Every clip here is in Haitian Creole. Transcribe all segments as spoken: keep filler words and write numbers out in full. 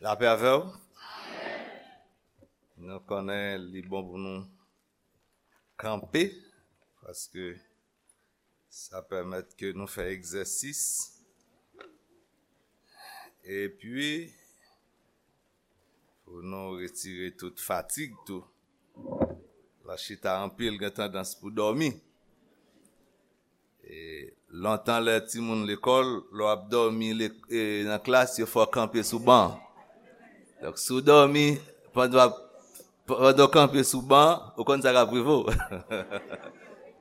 Lapè avè w. Nou konnen li bon pou nou kanpe, paske sa pèmèt ke nou fè egzèsis. Epi, pou nou retire tout fatig tou. La chita anpil gen tandans pou dòmi. E, lontan lè timoun lekòl, lè w ap dòmi le- e, nan klas, yo fè w kanpe sou ban. Donk, si w dòmi, pandan w ap, pandan w kanpe sou ban, ou konn sa k ap rive w.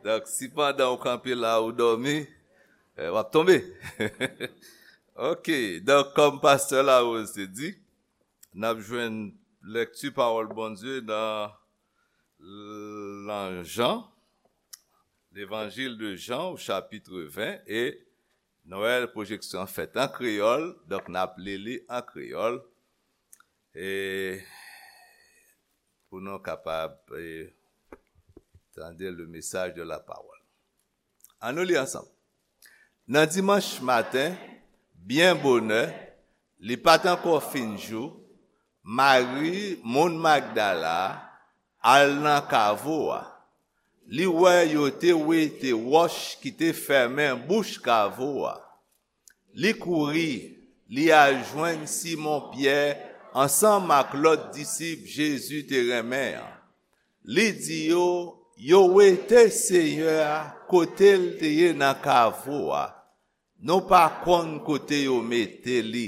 Donk, si pandan w kanpe la, ou dòmi, e, w ap tonbe. Ok, donk, kòm pastè Larose te di, n ap jwenn lèkti pawòl Bondye nan nan Jan, Levanjil de Jan, o chapit ven, e nou wè pwojeksyon an fèt an kreyòl, donk n ap li li an kreyòl, e pou nou kapab, e, tande le message de la parole. Ann nou li ansanm. Nan dimanch maten, byen bonè, li pa t ankò fin jou, Mari, moun Magdala, al nan kavo a. Li wè yo te wete wòch ki te fèmen bouch kavo a. Li kouri, li al jwenn Simon Pyè ansanm ak lòt disip Jezi te renmen an. Li di yo, yo wete Seyè a kote l te ye nan kavo a. Nou pa konn kote yo mete li.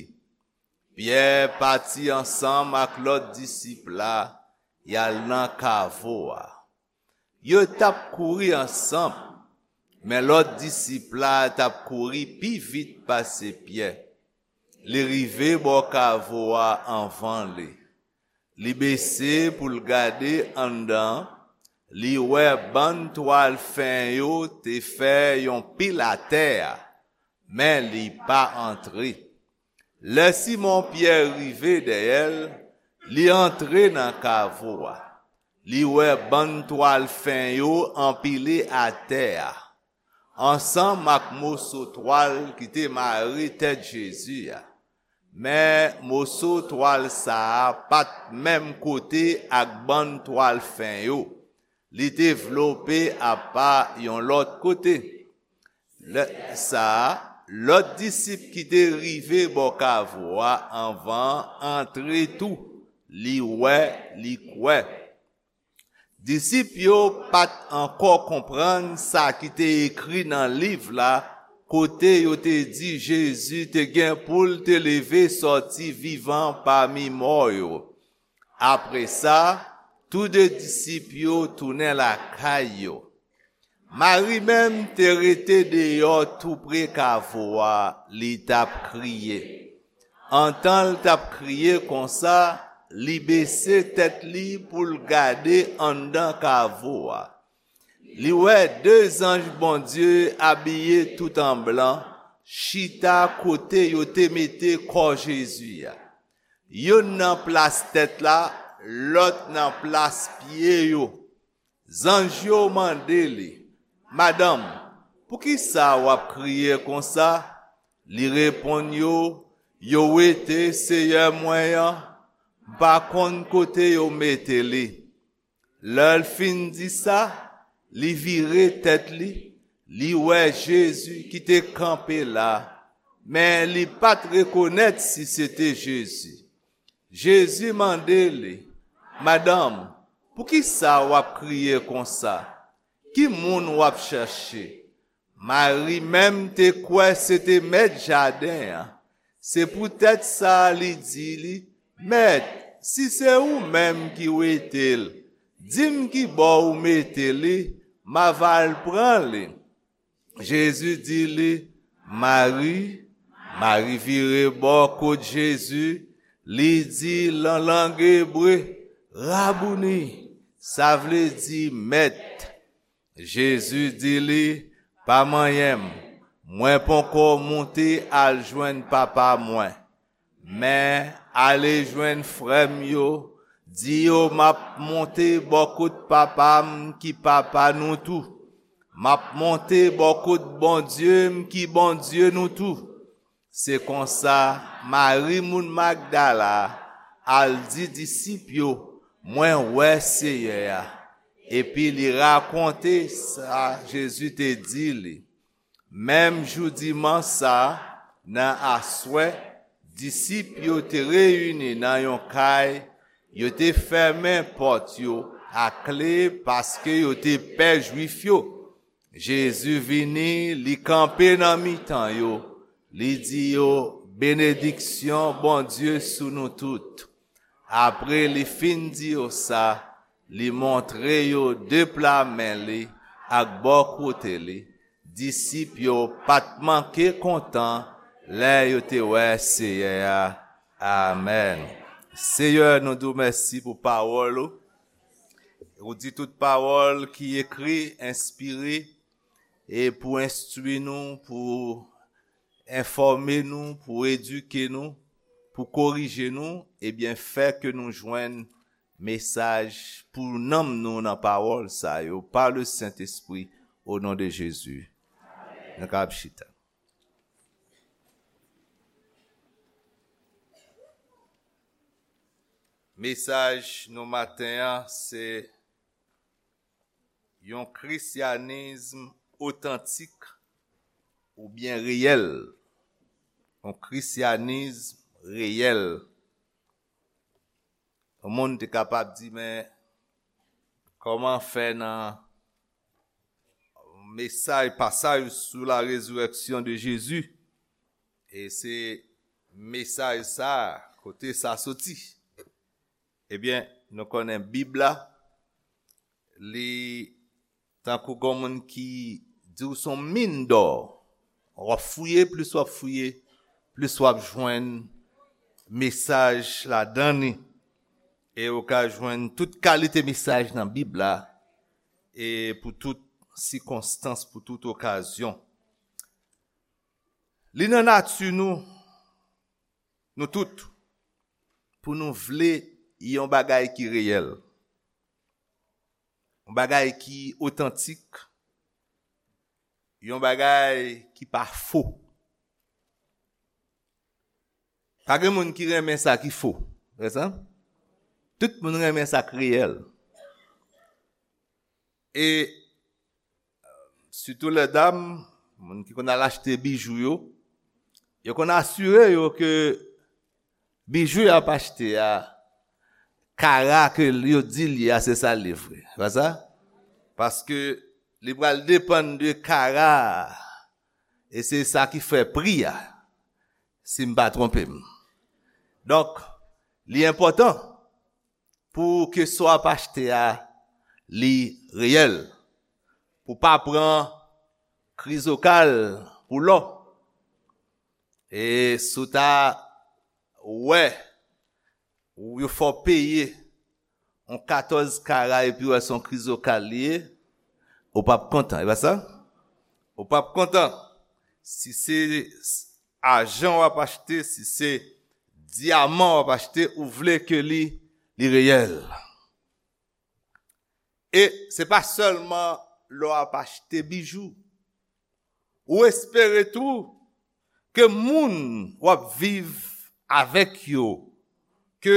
Pyè pati ansanm ak lòt disip la, y al nan kavo a. Yo t ap kouri ansanm, men lòt disip la t ap kouri pi vit pase Pyè. Li rive bò kavo a anvan li. Li bese pou l gade anndan, li wè bann twal fen yo te fè yon pil atè a, men li pa antre. Lè Simon Pyè rive dèyè l, li antre nan kavo a. Li wè bann twal fen yo anpile atè a, ansanm ak moso twal ki te mare tèt Jezi a. Men moso twal sa a pa t menm kote ak bann twal fen yo. Li te vlope apa yon lòt kote. Lè sa a, lòt disip ki te rive bò kavo a anvan an antre tou. Li wè, li kwè. Disip yo pa t ankò konprann sa ki te ekri nan liv la, kote yo te di Jezi te gen pou l te leve sòti vivan pami mò yo. Apre sa, tou de disip yo tounen lakay yo. Mari menm te rete deyò toupre kavo a, li t ap kriye. Antan l t ap kriye konsa, li bese tèt li pou l gade anndan kavo a. Li wè de zanj Bondye abiye tout an blan chita kote yo te mete kò Jezi a. Youn nan plas tèt la, lòt nan plas pye yo. Zanj yo mande li, "Madanm, poukisa w ap kriye konsa?" Li reponn yo, "Yo wete Seyè mwen an, m pa konn kote yo mete li." Lè l fin di sa, li vire tèt li, li wè Jezi ki te kanpe la, men li pa t rekonèt si se te Jezi. Jezi mande li, "Madanm, poukisa w ap kriye konsa? Ki moun w ap chèche?" Mari menm te kwè se te mèt jaden an. Se poutèt sa li di li, "Mèt, si se ou menm ki wete l, di m ki bò ou mete li, m a va al pran li." Jezi di li, "Mari." Mari vire bò kot Jezi, li di lan lang ebre, "Rabouni," sa vle di, "Mèt." Jezi di li, "Pa manyen m, mwen poko moute al jwenn Papa mwen. Men ale jwenn frè m yo, di yo m ap monte bò kot Papa m ki Papa nou tou. M ap monte bò kot Bondye m ki Bondye nou tou." Se konsa, Mari moun Magdala al di disip yo, mwen wè Seyè a. Epi li rakonte sa Jezi te di li. Menm jou dimanch sa a, nan aswè, disip yo te reyini nan yon kay, yo te fèmen pòt yo ak kle paske yo te pè Jwif yo. Jezi vini, li kanpe nan mitan yo, li di yo, benediksyon Bondye sou nou tout. Apre li fin di yo sa, li montre yo de pla men li ak bò kote li. Disip yo pa t manke kontan lè yo te wè Seyè a. Amèn. Seyè, nou di w mèsi pou pawòl ou. Ou di tout pawòl ki ekri, enspire, e pou enstwi nou, pou enfòme nou, pou edike nou, pou korije nou, ebyen, fè ke nou jwenn mesaj pou nanm nou nan pawòl sa yo, pa le Sentespri, o non de Jezi. Nou ka ap chita. Mesaj nou maten an, se yon krisyanism otantik oubyen reyèl. Yon krisyanism reyèl. Yon moun te kapab di, men kòman fè nan mesaj, pasaj sou la résurrection de Jésus, e se mesaj sa, kote sa soti? Ebyen, nou konnen Bib la, li tankou gon moun ki di w se yon min dò. W ap fouye, plis w ap fouye, plis w ap jwenn mesaj ladan li. E ou ka jwenn tout kalite mesaj nan Bib la, e pou tout sikonstans, pou tout okazyon. Li nan nati nou, nou tout, pou nou vle yon bagay ki reyèl, yon bagay ki otantik, yon bagay ki pa fo. Pa gen moun ki renmen sa ki fo, vre sa? Tout moun renmen sa k reyèl. E sitou lèdam, moun ki konn al achte bijou yo, yo konn asire yo ke bijou y ap achte a, kara ke yo di l ye a, se sa l ye vre. Pa sa? Paske li pral depann de kara a, e se sa ki fè pri a, si m pa twonpe m. Donk, li enpòtan pou ke sa w ap achte a, li reyèl. Pou pa pran krizokal pou lò. E si w ta wè, ou yo fè w peye yon katòz kara epi w wè se yon krizokal li ye, ou p ap kontan, e pa sa? Ou p ap kontan. Si se ajan w ap achte, si se dyaman w ap achte, ou vle ke li, li reyèl. E se pa sèlman lè w ap achte bijou. Ou espere tou ke moun w ap viv avèk yo, ke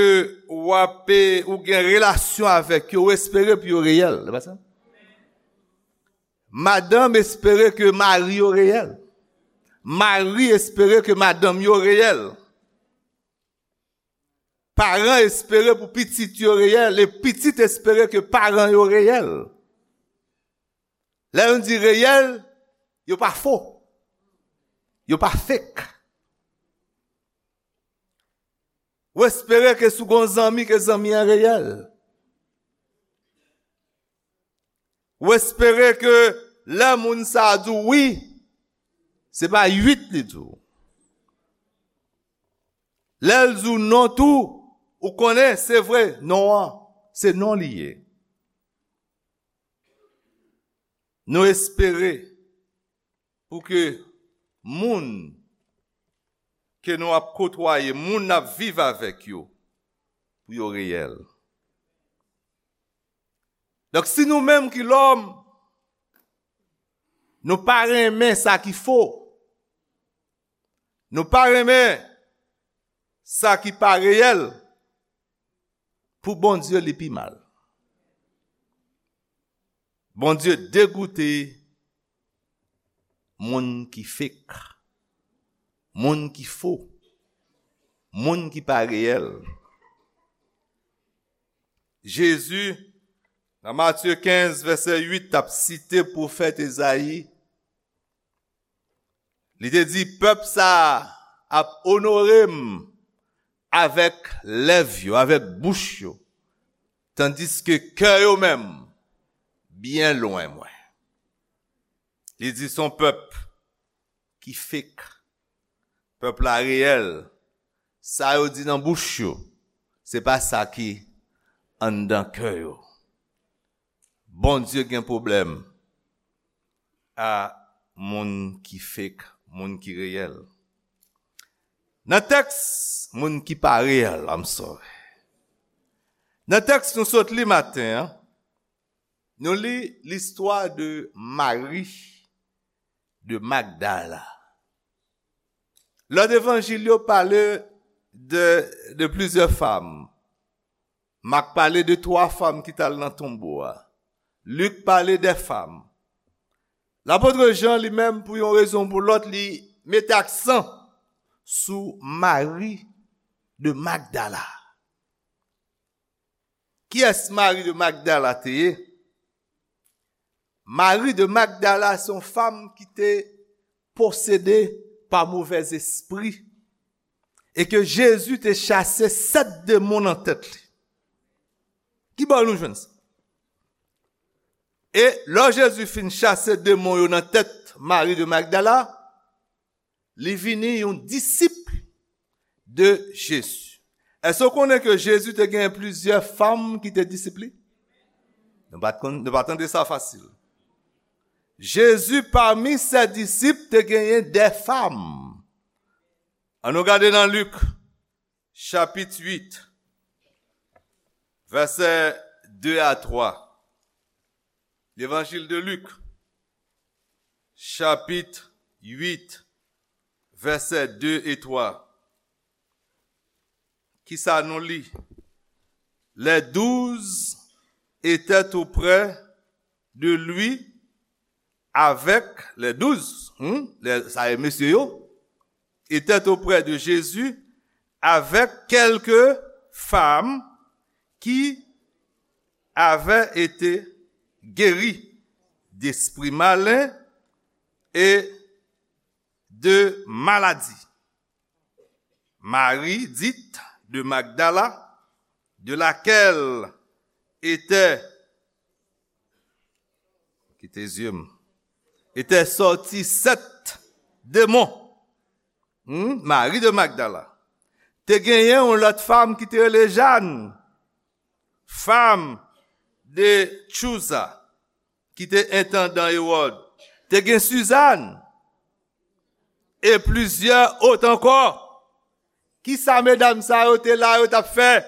w ap, ou gen relasyon avèk yo, ou espere pou yo reyèl. Se pa sa? Madanm espere ke mari yo reyèl. Mari espere ke madanm yo reyèl. Paran espere pou pitit yo reyèl, e pitit espere ke paran yo reyèl. Lè nou di reyèl, yo pa fo. Yo pa fake. Ou espere ke si w gen yon zanmi, ke zanmi an reyèl. Ou espere ke lè moun sa a di w wi, se pa uit li di w. Lè l di w non tou, ou konnen se vre, non an, se non li ye. Nou espere pou ke moun ke nou ap kotwaye, moun n ap viv avèk yo, pou yo reyèl. Donk, si nou menm ki lòm, nou pa renmen sa ki fo, nou pa renmen sa ki pa reyèl, Pou Bondye, li pi mal. Bondye degoute moun ki fake, moun ki fo, moun ki pa reyèl. Jezi, nan Matye kenz, vèsè uit, t ap site pwofèt Ezayi. Li te di, "Pèp sa a ap onore m avèk lèv yo, avèk bouch yo, tandiske kè yo menm byen lwen mwen." Li di, "Se yon pèp ki fake, pèp la reyèl, sa yo di nan bouch yo, se pa sa ki anndan kè yo." Bondye gen pwoblèm a moun ki fake, moun ki reyèl. Nan tèks, moun ki pa reyèl, I'm sorry. Nan tèks nou sot li maten an, nou li listwa de Mari de Magdala. Lòt evanjil yo pale de, de plizyè fanm. Mak pale de twa fanm ki t al nan tonbo a. Lik pale de fanm. Lapot Jan, li menm, pou yon rezon ou pou lòt, li mete aksan sou Mari de Magdala. Kiyès Mari de Magdala te ye? Mari de Magdala se yon fanm ki te posede pa movèzespri e ke Jezi te chase sèt demon nan tèt li. Ki bò nou jwenn sa? E lè Jezi fin chase demon yo nan tèt Mari de Magdala, li vini yon disip de Jezi. Èske w konnen ke Jezi te genyen plizyè fanm ki te disip li? Nou pa t konn, nou pa tande sa fasil. Jezi, pami se disip, te genyen de fanm. Ann nou gade nan Lik, chapit uit, vèsè de a twa. Levanjil de Lik, chapit uit, vèsè de e twa. Kisa nou li? Les douze étaient auprès de lui avec les douze, hmm, les, sa e mesye yo, étaient auprès de Jésus avec quelques femmes qui avaient été guéries d'esprits malins et de maladies. Marie, dite de Magdala, de laquelle était, kite zye m, était sorti sept démons. Hmm? Mari de Magdala. Te genyen yon lòt fanm ki te rele Jàn, fanm de Chouza, ki te entandan Ewòd. Te gen Sizàn, e plizyè ot ankò. Kisa medam sa yo te la, yo t ap fè?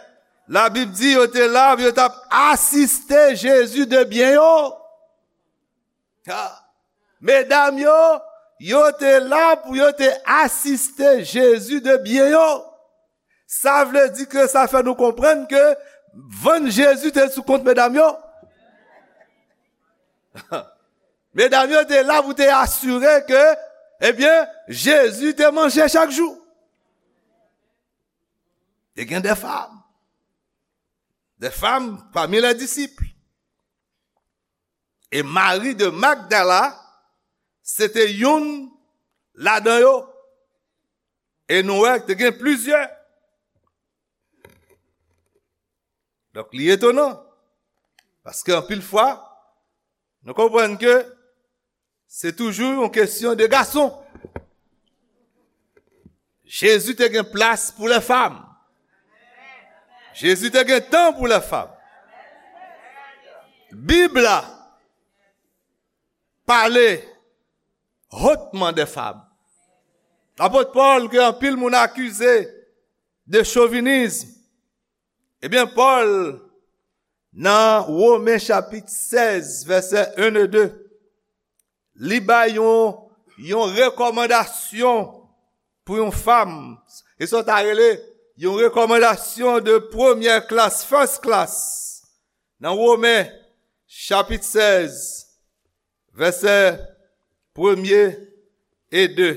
Labib di yo te la, yo t ap asiste Jezi de byen yo. Ha. Medam yo, yo te la pou yo te asiste Jezi de byen yo. Sa vle di ke sa fè nou konprann ke vann Jezi te sou kont medam yo. Medam yo te la pou te asire ke, ebyen, Jezi te manje chak jou. Te gen de fanm. De fanm pami les disciples. E Mari de Magdala, se te youn ladan yo. E nou wè, te gen plizyè. Donk, li etonan. Paske anpil fwa, nou konprann ke se toujou yon kesyon de gason. Jezi te gen plas pou lè fanm. Jezi te gen tan pou lè fanm. Bib la pale hotman de fanm. Lapot Pòl, ke anpil moun akize de chovinism, ebyen, Pòl, nan Women chapit sèz, vèsè en e de, li bay yon, yon rekòmandasyon pou yon fanm. E sa w ta rele yon rekòmandasyon de premyè klas, first class, nan Women, chapit sèz, vèsè premye e de.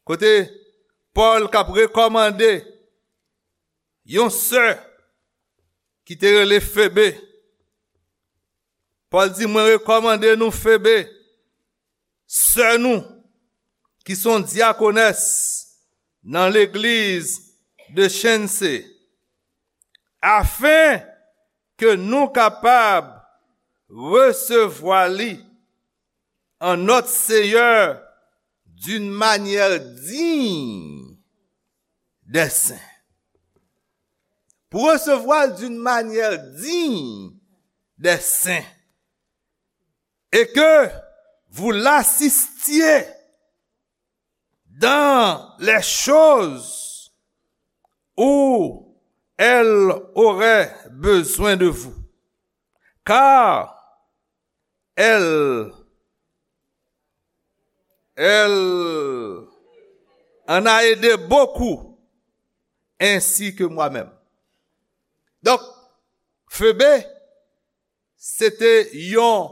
Kote Pòl k ap rekòmande yon sè ki te rele Febe. Pòl di, "Mwen rekòmande nou Febe, sè nou, ki se yon dyakonès nan legliz de Chense, afen ke nou kapab resevwa li en notre Seigneur d'une manière digne des saints." Pou resevwa l d'une manière digne des saints. Et que vous l'assistiez dans les choses où elle aurait besoin de vous. Car elle, elle en a aidé beaucoup, ainsi que moi-même. Donk, Febe, se te yon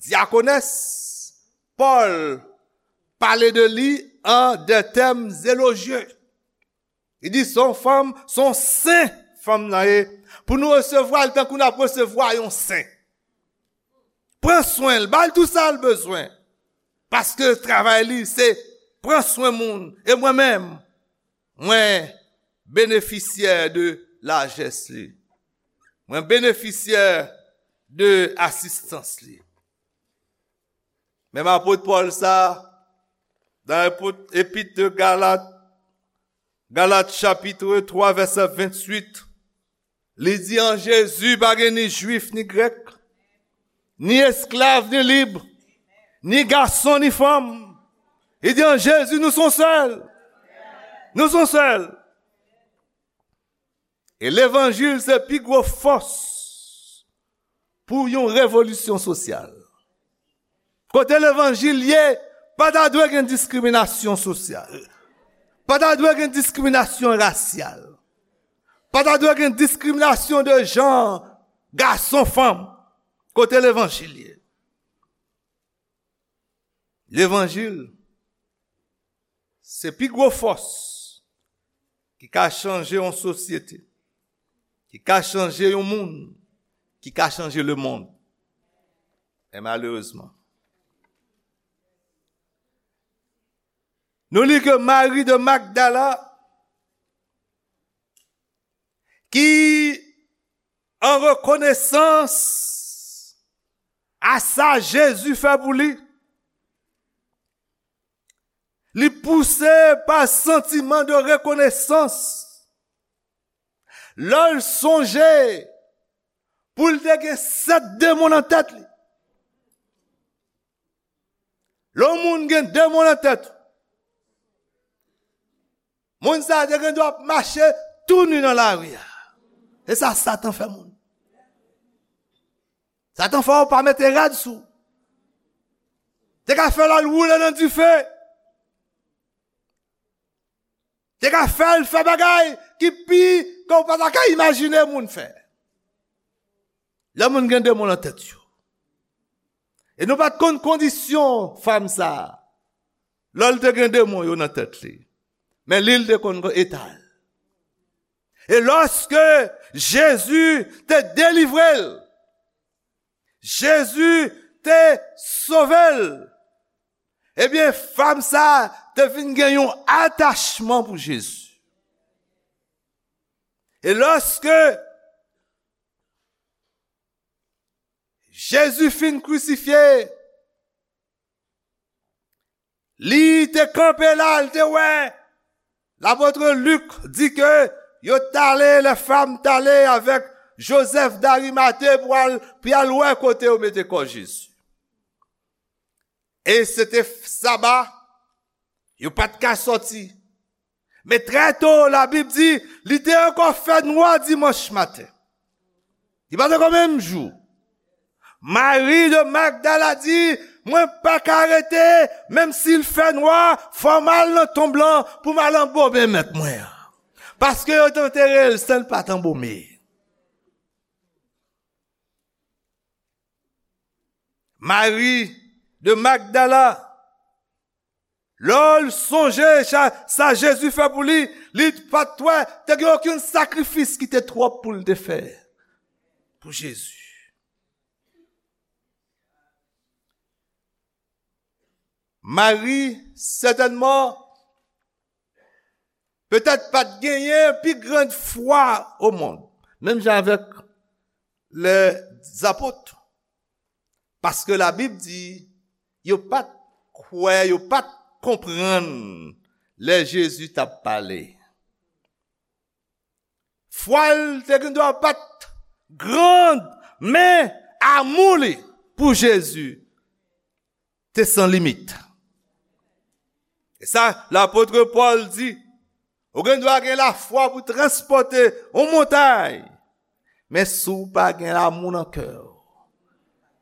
dyakonès. Pòl pale de li an de tèm elojye. Li di, "Se yon fanm, se yon sen fanm nan ye." Pou nou resevwa l tankou n ap resevwa yon sen. Pran swen l, ba l tou sa l bezwen. Paske travay li, se pran swen moun. E mwen menm, mwen benefisyè de lajès li. Mwen benefisyè de asistans li. Menm apot Pòl sa, nan epot, epit de Galat, Galat chapit twa, vèsè venntuit, li di, "An Jezi, pa gen ni jwif, ni grèk, ni esklav, ni lib, ni gason, ni fanm." Li di, "An Jezi, nou se yon sèl. Nou se yon sèl." E levanjil se pi gwo fòs pou yon revolisyon sosyal. Kote levanjil ye, pa ta dwe gen diskriminasyon sosyal. Pa ta dwe gen diskriminasyon rasyal. Pa ta dwe gen diskriminasyon de jan, gason, fanm. Kote levanjil ye. Levanjil, se pi gwo fòs ki ka chanje yon sosyete, ki ka chanje yon moun, ki ka chanje lemonn. E malerezman, nou li ke Mari de Magdala, ki an rekonesans a sa Jezi fè pou li, li pouse pa santiman de rekonesans. Lè l sonje pou l te gen sèt demon nan tèt li. Lè yon moun gen demon nan tèt, moun sa a te gen dwa ap mache tou ni nan lari a. E sa Satan fè moun. Satan fè w pa mete rad sou. Te ka fè l al woule nan dife. Te ka fè l fè bagay ki pi ke w pa ta ka imajine moun fè. Lè moun gen demon nan tèt yo. E nou pa t konn kondisyon fanm sa a. Lè l te gen demon yo nan tèt li. Men li l te konn eta l. E lòske Jezi te delivre l, Jezi te sove l, ebyen, fanm sa a te vin gen yon atachman pou Jezi. E lòske Jezi fin krisifye, li te kanpe la, li te wè. Lapot Lik di ke yo t ale, lè fanm t ale avèk Jozèf Darimate pou al, pou y al wè kote yo mete kò Jezi. E se te saba, yo pa t ka sòti. Men trè to, Labib di, li te ankò fè nwa dimanch maten. Li pa t ankò menm jou. Mari de Magdala di, Mwen pa ka rete, menm si l fè nwa, fò m al nan tonm lan pou m al anbomen mèt mwen an. Paske yo t antere l san l pa t anbome. Mari de Magdala, lè l sonje sa, sa Jezi fè pou li, li pa t wè te gen okenn sakrifis ki te twòp pou l te fè pou Jezi. Mari, sètènman, petèt pa t genyen pi grand fwa o mond. Menm jan avèk lèzapot. Paske Labib di, yo pa t kwè, yo pa t konprann lè Jezi t ap pale. Fwa l te gen dwa pa t grand, men amou li pou Jezi te san limit. E sa, lapot Pòl di, ou gen dwa gen lafwa pou transpòte yon montay, men si w pa gen lamou nan kè w,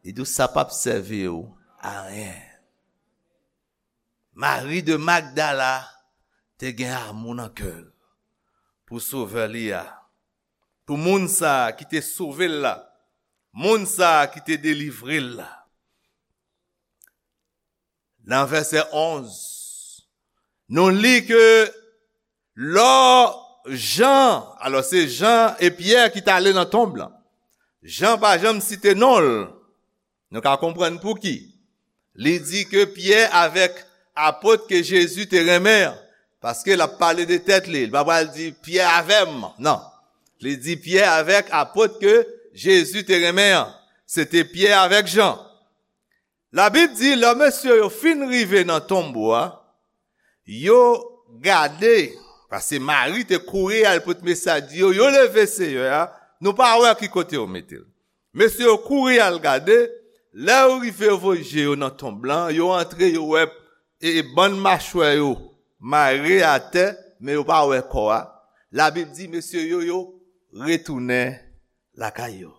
li di w sa p ap sèvi w a anyen. Mari de Magdala te gen amou nan kè l pou Sovè li a, pou moun sa a ki te sove l la, moun sa a ki te delivre l la. Nan vèsè onz, nou li ke lò Jan, alò se Jan e Pyè ki t ale nan tonm lan. Jan pa janm site non l. Nou ka konprann pouki. Li di ke Pyè avèk apot ke Jezi te renmen an, paske l ap pale de tèt li, li pa pral di Pyè avè m, non. Li di Pyè avèk apot ke Jezi te renmen an. Se te Pyè avèk Jan. Labib di, lè mesye yo fin rive nan tonbo a, yo gade, paske Mari te kouri al pote mesaj, di yo, yo leve Seyè a, nou pa wè ki kote yo mete l. Mesye yo kouri al gade, lè yo rive, yo voye je yo nan tonb lan, yo antre, yo wè, e, e bann machwè yo mare atè, men yo pa wè kò a. Labib di, mesye yo, yo retounen lakay yo.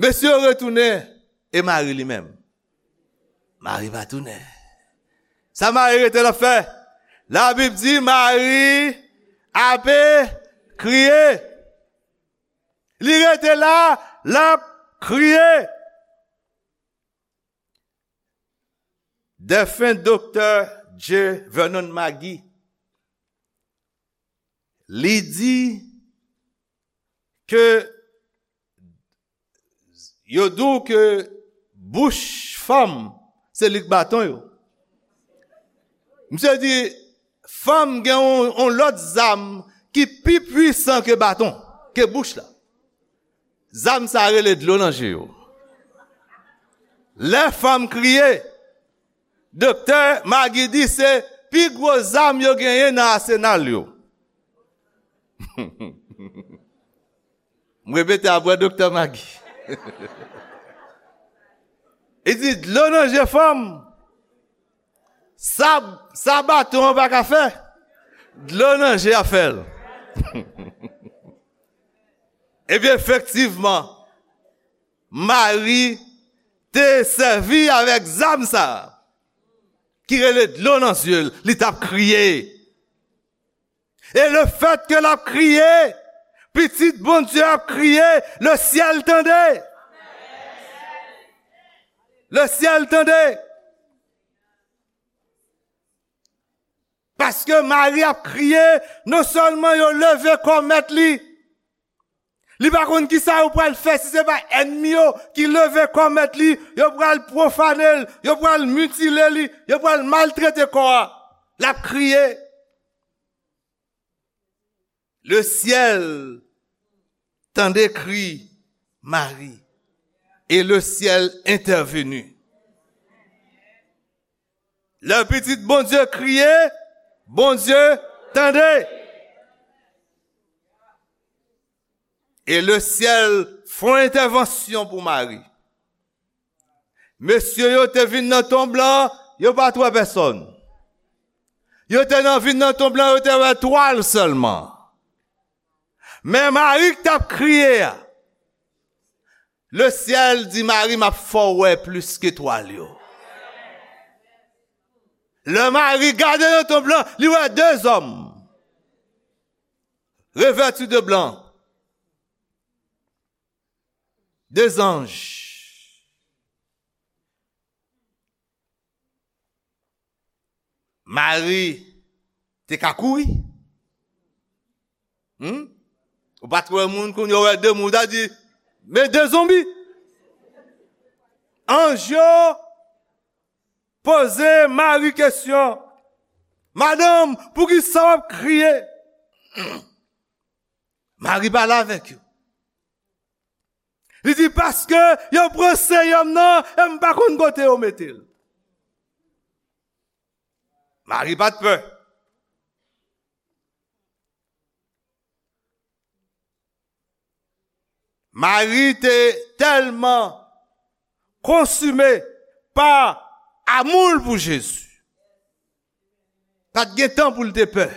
Mesye yo retounen, e Mari li menm? Mari pa tounen. Sa Mari rete l ap fè? Labib di Mari ape kriye. Li rete la, l ap kriye. Defen Doktè J. Vernon McGee, li di ke yo di w ke bouch fanm se li k baton yo. Misye di, fanm gen yon, yon lòt zam ki pi pwisan ke baton, ke bouch la. Zam sa rele dlo nan je yo. Lè fanm kriye, Doktè McGee di se pi gwo zam yo genyen nan asenal yo. M repete apre Doktè McGee. Li di dlo nan je fanm, sa, sa baton an pa ka fè, dlo nan je a fè l. Ebyen, efektivman, Mari te sèvi avèk zam sa a, ki rele dlo nan zye l, li t ap kriye. E lefètke l ap kriye, pitit Bondye ap kriye, lesyèl tande. Lesyèl tande. Paske Mari ap kriye, non sèlman yo leve kò mèt li, li pa konn kisa yo pral fè si se pa ènmi yo ki leve kò mèt li, yo pral pwofane l, yo pral mitile li, yo pral maltrete kò a. L ap kriye. Le ciel tande kri Mari, e le ciel entèveni. Lè pitit Bondye kriye, Bondye tande. E le ciel fè yon entèvansyon pou Mari. Mesye yo te vin nan tonb lan, yo pa t wè pèsòn. Yo te nan vin nan tonb lan, yo te wè twal sèlman. Men Mari k t ap kriye a, Le syèl di Mari, "M ap fè w wè plis ke etwal yo." Lè Mari gade nan tonb lan, li wè de zòm revèti de blan, de zanj. Mari te ka kouri. Hmm? Ou pa t wè moun kounye a wè de moun, ou ta di, "Men de zonbi." Anj yo poze Mari kesyon, "Madanm, poukisa w ap kriye?" Mari pale avèk yo. Li di, "Paske yo pran Seyè m nan, e m pa konn kote yo mete l." Mari pa t pè. Mari te tèlman konsime pa amou l pou Jezi. Pa t gen tan pou l te pè.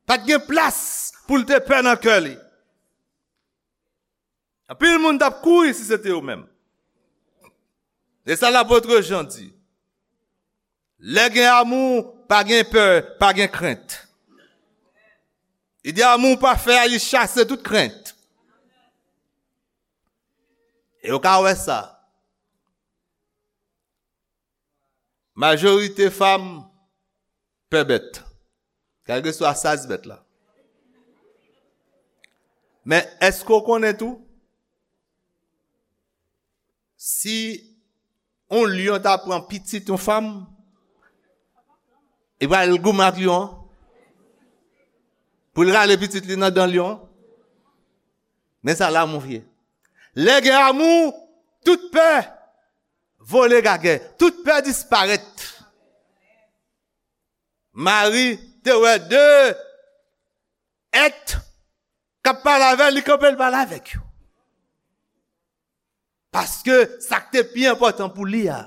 Pa t gen plas pou l te pè nan kè li. Anpil moun t ap kouri si se te yo menm. E sa lapot Jan di. Lè gen amou, pa gen pè, pa gen krent. Li di amou pafè a, li chase tout krent. E ou ka wè sa. Majorite fanm pè bèt. Kèlkeswa size bèt la. Men èske w konnen tou? Si yon lyon ta pran pitit yon fanm, li pral goumen ak lyon an. Pou l rale pitit li nan dan lyon an. Men sa lanmou ye. Lè gen amou, tout pè vole gagè. Tout pè disparèt. Mari te wè de èt k ap pale avè l, li kanpe l pale avèk yo. Paske sa k te pi enpòtan pou li a,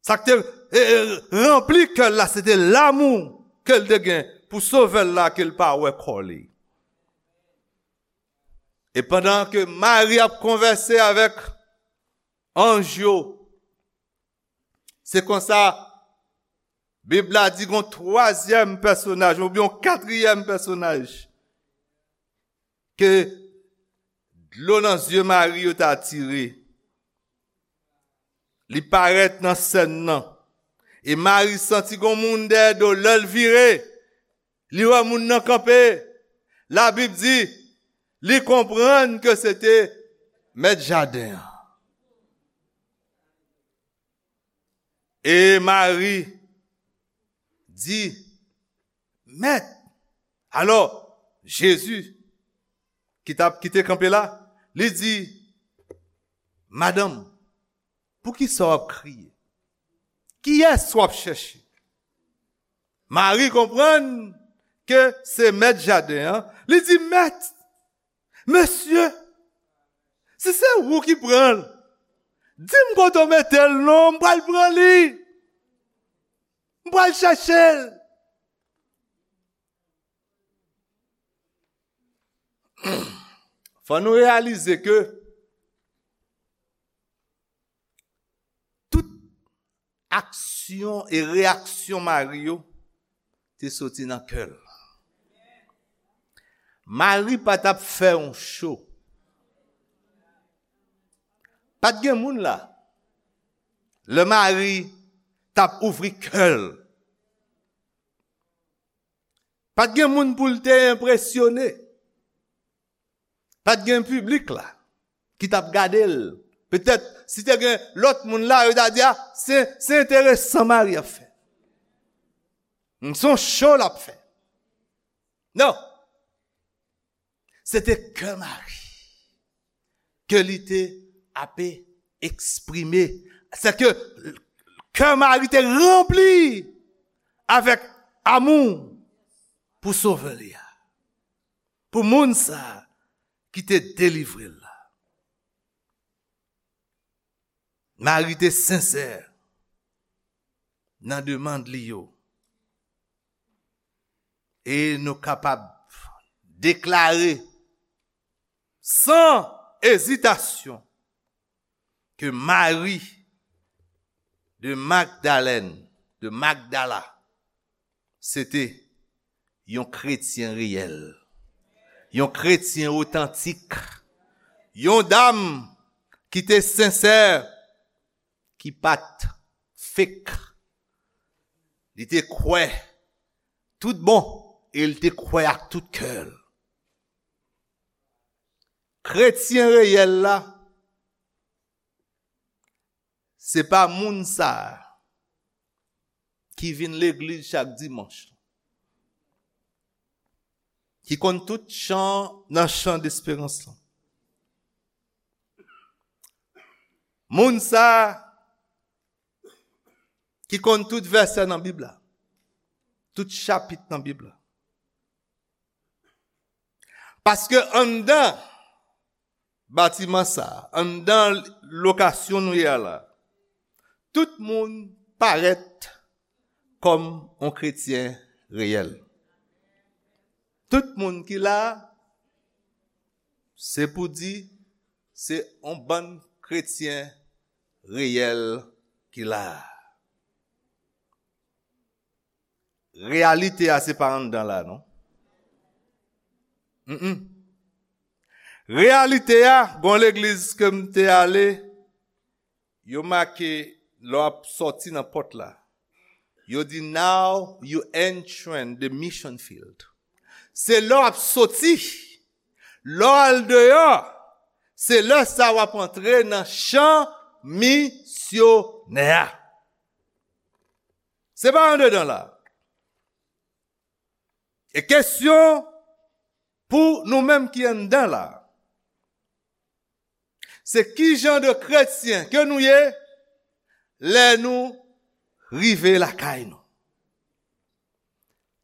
sa k te, e, e, ranpli kè l la, se te lanmou ke l te gen pou Sovè l la ke l pa wè kò li. E pandan ke Mari ap konvèse avèk anj yo, se konsa Bib la di gon twazyèm pèsonaj, oubyen yon katriyèm pèsonaj, ke dlo nan zye Mari yo ta tire. Li parèt nan sèn nan. E Mari santi gon moun dèyè do l. Lè l vire, li wè moun nan kanpe. Labib di, li konprann ke se te mèt jaden an. E Mari di, "Mèt." Alò, Jezi, ki t ap, ki te kanpe la, li di, "Madanm, poukisa w ap kriye? Kiyès w ap chèche?" Mari konprann ke se mèt jaden an. Li di, "Mèt, mesye, si se ou ki pran l, di m kote w mete l non, m pral pran li. M pral chèche l." Fò nou reyalize ke tout aksyon e reyaksyon Mari yo te soti nan kè l. Mari pa t ap fè yon cho. Pa t gen moun la. Lè Mari t ap ouvri kè l, pa t gen moun pou l te enpresyone. Pa t gen piblik la ki t ap gade l. Petèt, si te gen lòt moun la, yo ta di, "A, se, se enteresan Mari ap fè. Se yon cho l ap fè." Non. Se te kè Mari ke li te ape eksprime. Se ke kè Mari te ranpli avèk amou pou Sovè li a. Pou moun sa a ki te delivre l la. Mari te sensè nan demann li yo. E nou kapab deklare san ezitasyon ke Mari de Magdalèn, de Magdala, se te yon kretyen reyèl, yon kretyen otantik, yon dam ki te sensè, ki pa t fake. Li te kwè tout bon e li te kwè ak tout kè l. Kretyen reyèl la, se pa moun sa a ki vin legliz chak dimanch, ki konn tout chan nan chan desperans lan. Moun sa a ki konn tout vèsè nan Bib la, tout chapit nan Bib la. Paske anndan batiman sa a, anndan lokasyon nou ye a la, tout moun parèt kòm yon kretyen reyèl. Tout moun ki la, se pou di, se yon bann kretyen reyèl ki la. Reyalite a se pa anndan la, non. Mm-mm. Reyalite a, gon legliz ke m te ale, yo make lè w ap sòti nan pòt la. Yo di, "Now you entering the mission field." Se lè w ap sòti, lè w al deyò, se lè sa w ap antre nan chan misyonè a. Se pa andedan la. E kesyon pou nou menm ki anndan la, se ki jan de kretyen ke nou ye lè nou rive lakay nou?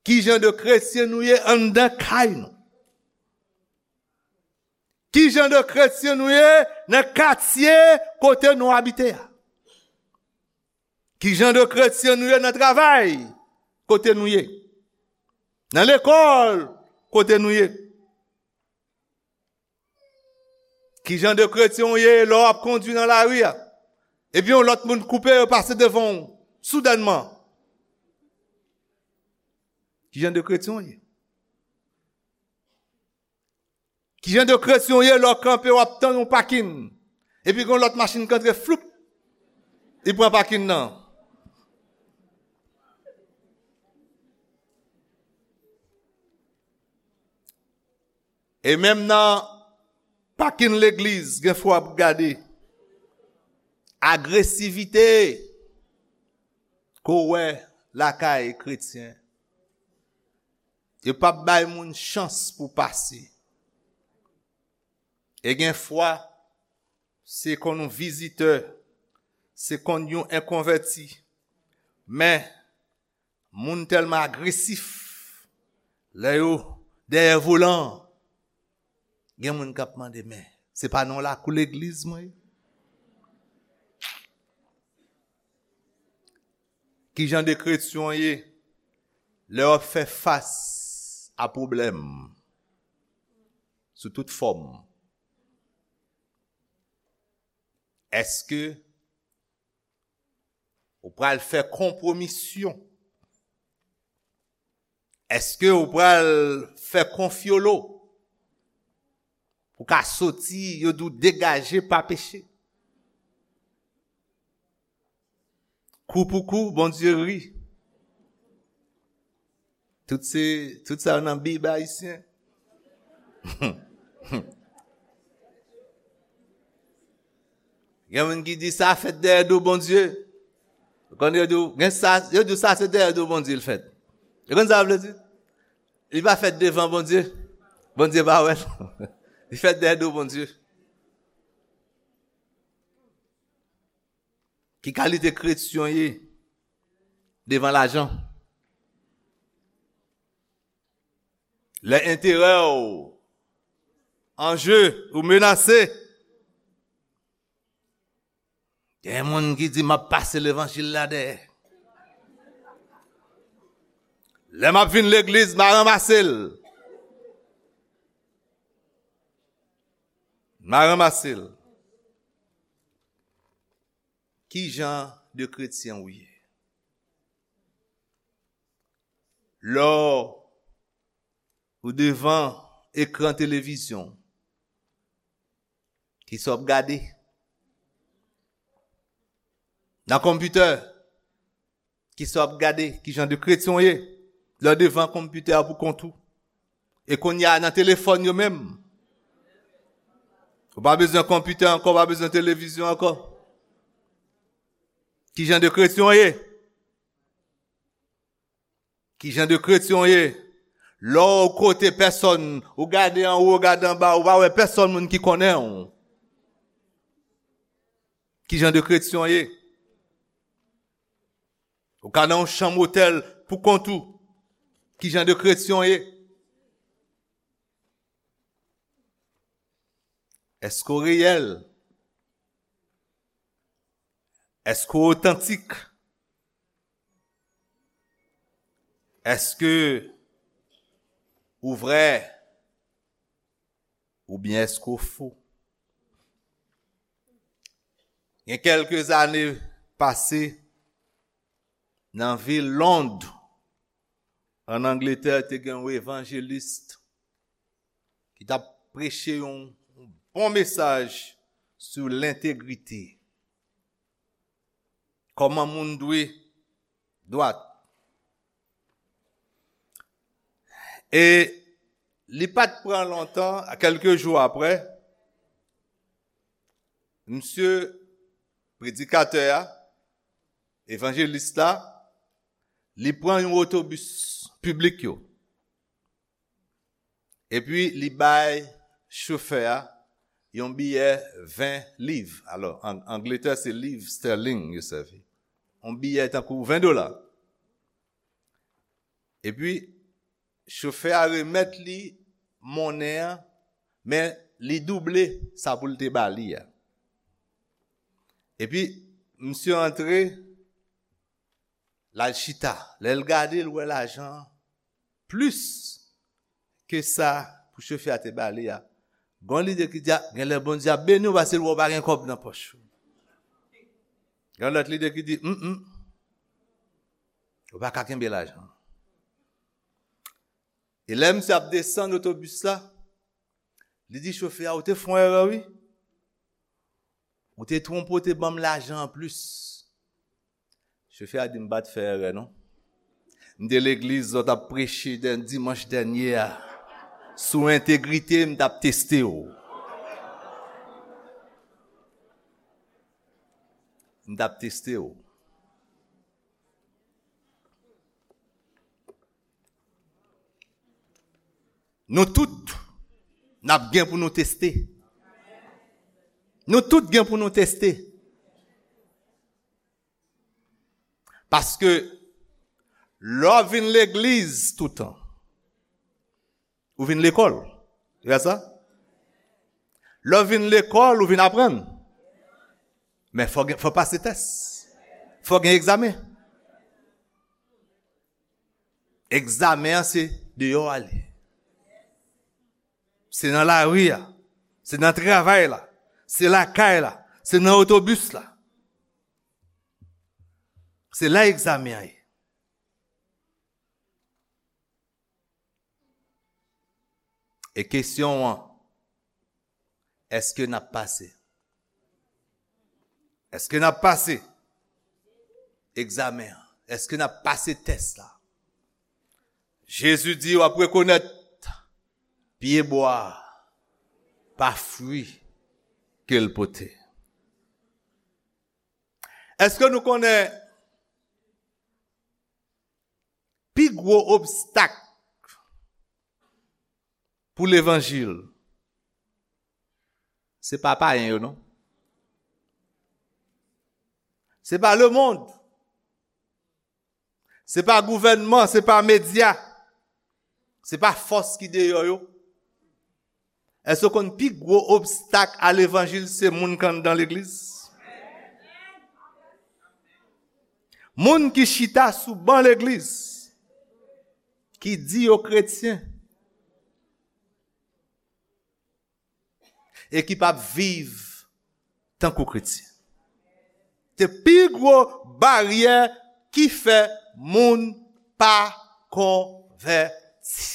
Ki jan de kretyen nou ye anndan kay nou? Ki jan de kretyen nou ye nan katye kote nou abite a? Ki jan de kretyen nou ye nan travay kote nou ye? Nan lekòl kote nou ye? Ki jan de kretyen w ye lè w ap kondui nan lari a, epi yon lòt moun koupe yo pase devan w soudènman? Ki jan de kretyen w ye? Ki jan de kretyen w ye lè w kanpe w ap tann yon pakin, epi gen yon lòt machin k antre floup, li pran pakin nan? E menm nan pakin legliz, gen fwa w ap gade agresivite ke w wè lakay kretyen. Yo p ap bay moun chans pou pase. E gen fwa, se konn yon vizitè, se konn yon enkonvèti. Men, moun tèlman agresif, lè yo dèyè volan an, gen moun k ap mande, "Men, se pa nan lakou legliz mwen ye?" Ki jan de kretyen w ye lè w ap fè fas a pwoblèm sou tout fòm? Èske ou pral fè konpwomisyon? Èske ou pral fè konfyolo pou ka soti, yo di w degaje pa peche? Kou pou kou, Bondye ri. Tout se, tout sa yo nan Bib ayisyen. Gen moun ki di sa fèt dèyè do Bondye. Ou konn yo di w, gen sa, yo di w sa se dèyè do Bondye l fèt. Ou konn sa vle di? Li pa fèt devan Bondye. Bondye pa wè l. Li fèt dèyè do Bondye. Ki kalite kretyen w ye devan lajan? Lè enterè w an je ou menase, gen moun ki di, "M ap pase levanjil la dèyè. Lè m ap vin legliz, m a ranmase l." M a ranmase l. Ki jan de kretyen ou ye? Lè w devan ekran televizyon, kisa w ap gade? Nan konpitè, kisa w ap gade? Ki jan de kretyen w ye? Lè w devan konpitè a pou kont ou. E kounye a nan telefòn yo menm. Ou pa bezwen konpitè ankò, ou pa bezwen televizyon ankò. Ki jan de kretyen w ye? Ki jan de kretyen w ye? Lè w kote pèsòn, ou gade anwo, ou gade anba, ou pa wè pèsòn moun ki konnen w. Ki jan de kretyen w ye? Ou ka nan yon chanm otèl pou kont ou. Ki jan de kretyen w ye? Èske w reyèl? Èske w otantik? Èske ou vrè? Oubyen èske w fo? Gen kèlke zane pase, nan vil Lond, ann Angletè, te gen yon evanjelis ki t ap preche yon, yon bon mesaj sou lentegrite. Kòman moun dwe dwat. E li pa t pran lontan, kèlke jou apre, msye predikatè a, evanjelis la, li pran yon otobis piblik yo. Epi li bay chofè a yon biyè ven liv. Alò, an Angletè, se liv sterling yo sèvi. Yon biyè tankou ven dola. Epi, chofè a remèt li monnen an, men li double sa pou l te ba li a. Epi, msye antre, l al chita. Lè l gade, l wè lajan an plis ke sa pou chofè a te ba li a. Gen lide ki di, a, genlè Bondye ap beni w paske l wè w pa gen kòb nan pòch ou. Gen lòt lide ki di, m, m, ou pa ka kenbe lajan. E lè misye ap desann otobis la, li di chofè a, ou te fè yon erè, wi. Ou te twonpe, w te ban m lajan anplis. Chofè a di, m pa t fè erè, non. M te legliz lè w t ap preche dè, dimanch dènye a. Sou entegrite, m t ap teste w. M t ap teste w. Nou tout, n ap gen pou nou teste. Nou tout gen pou nou teste. Paske lè w vin legliz toutan, ou vin lekòl. Se pa sa? Lè w vin lekòl, ou vin aprann. Men fò gen, fò pase tès. Fò gen egzamen. Egzamen an se deyò a li. Se nan lari a. Se nan travay la. Se lakay la. Se nan otobis la. Se la egzamen an ye. E kesyon an, èske n ap pase? Èske n ap pase egzamen an? Èske n ap pase tès la? Jezi di w ap rekonèt pyebwa a pa fwi ke l pote. Èske nou konnen pi gwo obstak pou levanjil, se pa payen yo, non. Se pa lemonn. Se pa gouvènman, se pa medya. Se pa fòs ki deyò yo. Èske w konn pi gwo obstak a levanjil se moun k anndan legliz? Moun ki chita sou ban legliz, ki di yo kretyen, e ki p ap viv tankou kretyen. Se pi gwo baryè ki fè moun pa konvèti.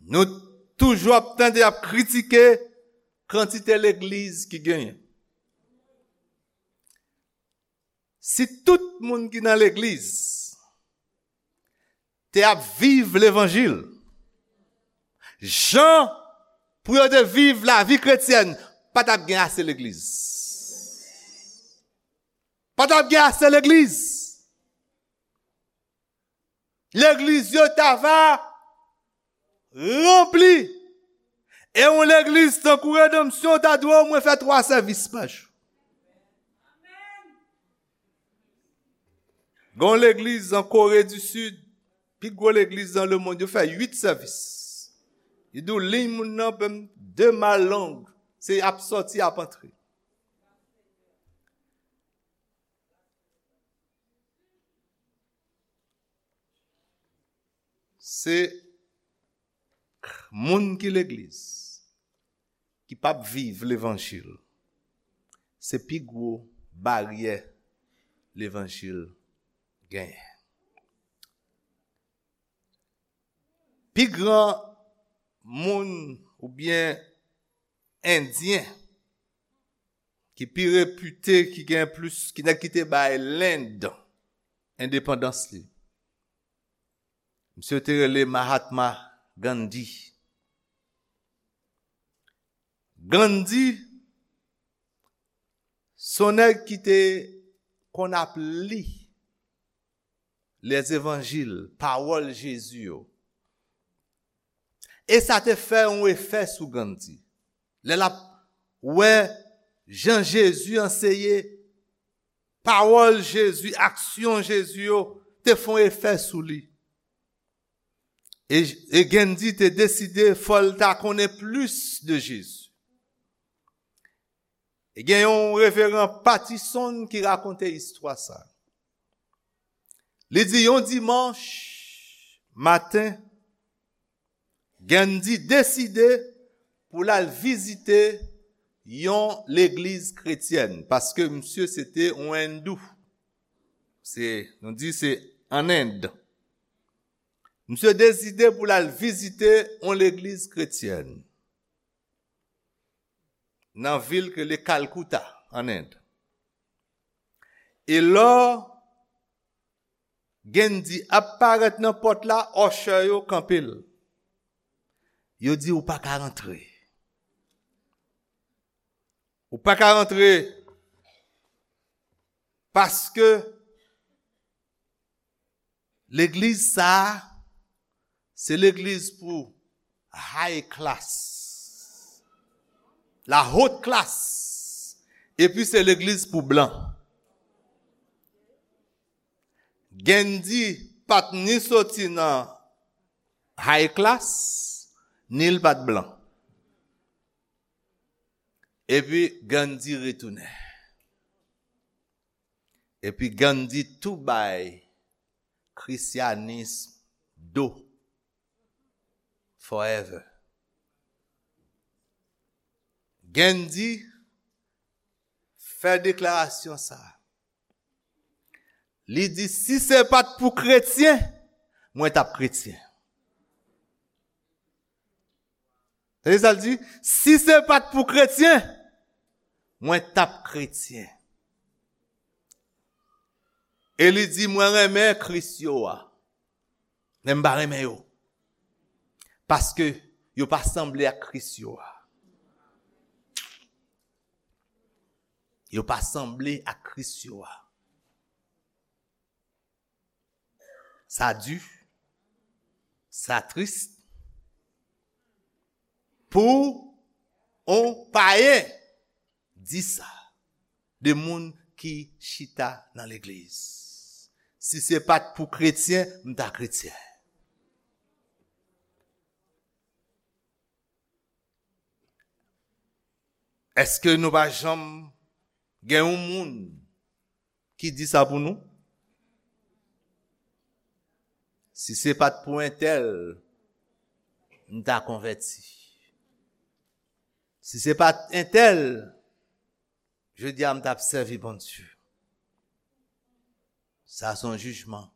Nou toujou ap tande y ap kritike kantite legliz ki genyen. Si tout moun ki nan legliz te ap viv levanjil jan pou yo te viv lavi kretyèn, pa t ap gen ase legliz. Pa t ap gen ase legliz. Legliz yo ta va ranpli. E yon legliz tankou Redanmsyon ta dwe omwen fè twa sèvis pa jou. Gen yon legliz an Kore di Sid, pi gwo legliz nan lemonn, yo fè uit sèvis. Li di w liy moun nan, menm de mal long, se ap sòti, ap antre. Se moun ki legliz, ki p ap viv levanjil, se pi gwo baryè levanjil genyen. Pi gran moun oubyen Endyen ki pi repite, ki gen plis, ki nèg ki te bay Lend endepandans li. Misye te rele Mahatma Gandhi. Gandhi, se yon nèg ki te konn ap li lèzevanjil, pawòl Jezi yo. E sa te fè yon efè sou Gandhi. Lè l ap wè jan Jezi anseye, pawòl Jezi, aksyon Jezi yo te fè yon efè sou li. E, e Gandhi te deside fò l ta konnen plis de Jezi. E gen yon reveran Patterson ki rakonte istwa sa. Li di yon dimanch maten, Gandhi deside pou l al vizite yon legliz kretyèn, paske misye se te yon endou. Se, nou di se an End. Misye deside pou l al vizite yon legliz kretyèn nan vil ke le Calcutta, an End. E lò Gandhi ap parèt nan pòt la, usher yo kanpe l. Yo di, "Ou pa ka rantre. Ou pa ka rantre paske legliz sa a, se legliz pou high class, la haute classe, epi se legliz pou blan." Gandhi pa t ni soti nan high class, ni l pa t blan. Epi Gandhi retounen. Epi Gandhi tou bay Krisyanis do. Forever. Gandhi fè deklarasyon sa. Li di, "Si se pa t pou kretyen, mwen t ap kretyen." Tande sa l di, "Si se pa t pou kretyen, mwen t ap kretyen." E li di, "Mwen renmen Kris yo a, men m pa renmen yo, paske yo pa sanble ak Kris yo a." Yo pa sanble ak Kris yo a. Sa di, sa tris pou on payen di sa de moun ki chita nan legliz. Si se pa t pou kretyen, m ta kretyen. Èske nou pa janm gen yon moun ki di sa pou nou? Si se pa t pou entèl, m ta konvèti. Si se pa t entèl, jodi a m t ap sèvi Bondye. Sa se yon jijman.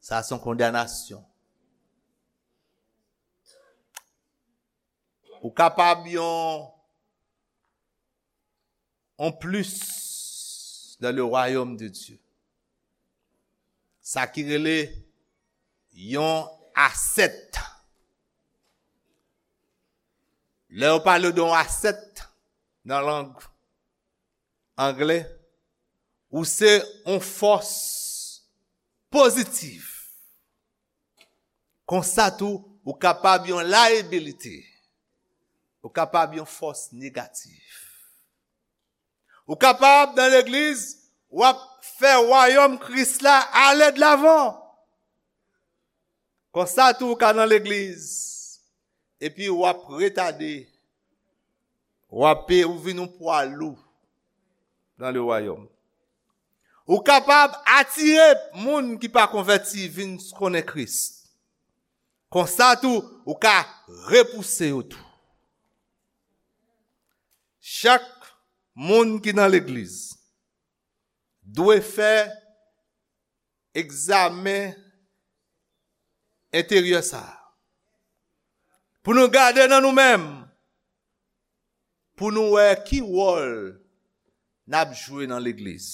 Sa se yon kondanasyon. Ou kapab yon, yon plis dans le royaume de Dieu. Sa ki rele yon asèt. Lè yo pale de yon asèt nan lang anglè, ou se yon fòs pozitif. Konsa tou, ou kapab yon layabilite. Ou kapab yon fòs negatif. Ou kapab nan legliz, w ap fè wayòm Kris la ale de lavan. Konsa tou, ou ka nan legliz, epi w ap retade, w ap, ou vin yon pwa lou dans le royaume. Ou kapab atire moun ki pa konvèti vin konnen Kris. Konsa tou, ou ka repouse yo tou. Chak moun ki nan legliz dwe fè egzamen enteryè sa a. Pou nou gade nan nou menm, pou nou wè ki wòl n ap jwe nan legliz.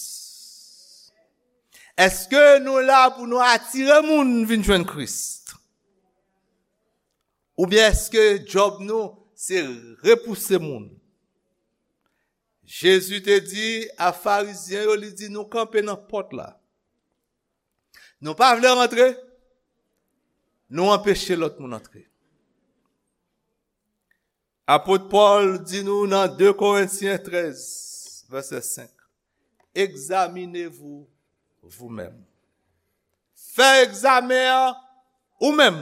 Èske nou la pou nou atire moun vin jwenn Kris? Oubyen èske djòb nou se repouse moun? Jezi te di a Farizyen yo, li di, nou kanpe nan pòt la. Nou pa vle rantre, nou anpeche lòt moun antre. Apot Pòl di nou nan de Korentyen trèz, vèsè senk, examinez-vous vous-même. Fè egzamen an ou menm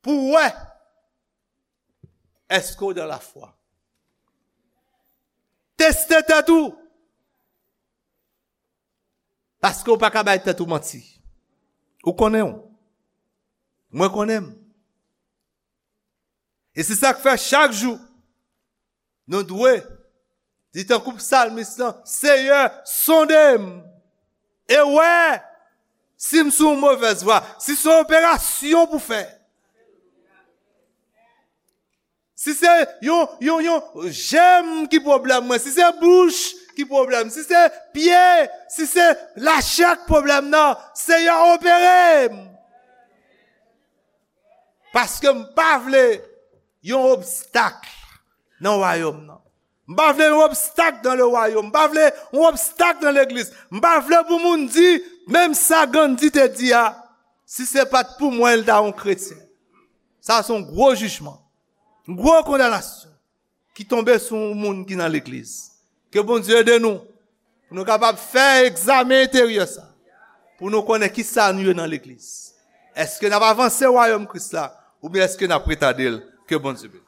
pou w wè èske w dans la foi. Teste tèt ou. Paske w pa ka bay tèt ou manti. Ou konnen w. Mwen konnen m. E se sa k fè chak jou, nou dwe di tankou psalmis lan, Seyè, sonde m e wè si m sou yon movèz vwa, si se yon operasyon pou fè. Si se yon, yon, yon jèm ki pwoblèm mwen, si se bouch ki pwoblèm, si se pye, si se lachè k pwoblèm nan, Seyè, opere m. Paske m pa vle yon obstak nan wayòm nan. M pa vle yon obstak dans le royaume. M pa vle yon obstak nan legliz. M pa vle pou moun di, menm sa Gandhi te di a, si se pa t pou mwen, l ta yon kretyen. Sa se yon gwo jijman, yon gwo kondanasyon ki tonbe sou yon moun ki nan legliz. Ke Bondye ede nou pou nou kapab fè egzamen enteryè sa, pou nou konnen ki sa nou ye nan legliz. Èske n ap avanse wayòm Kris la, oubyen èske n ap retade l? Ke Bondye beni.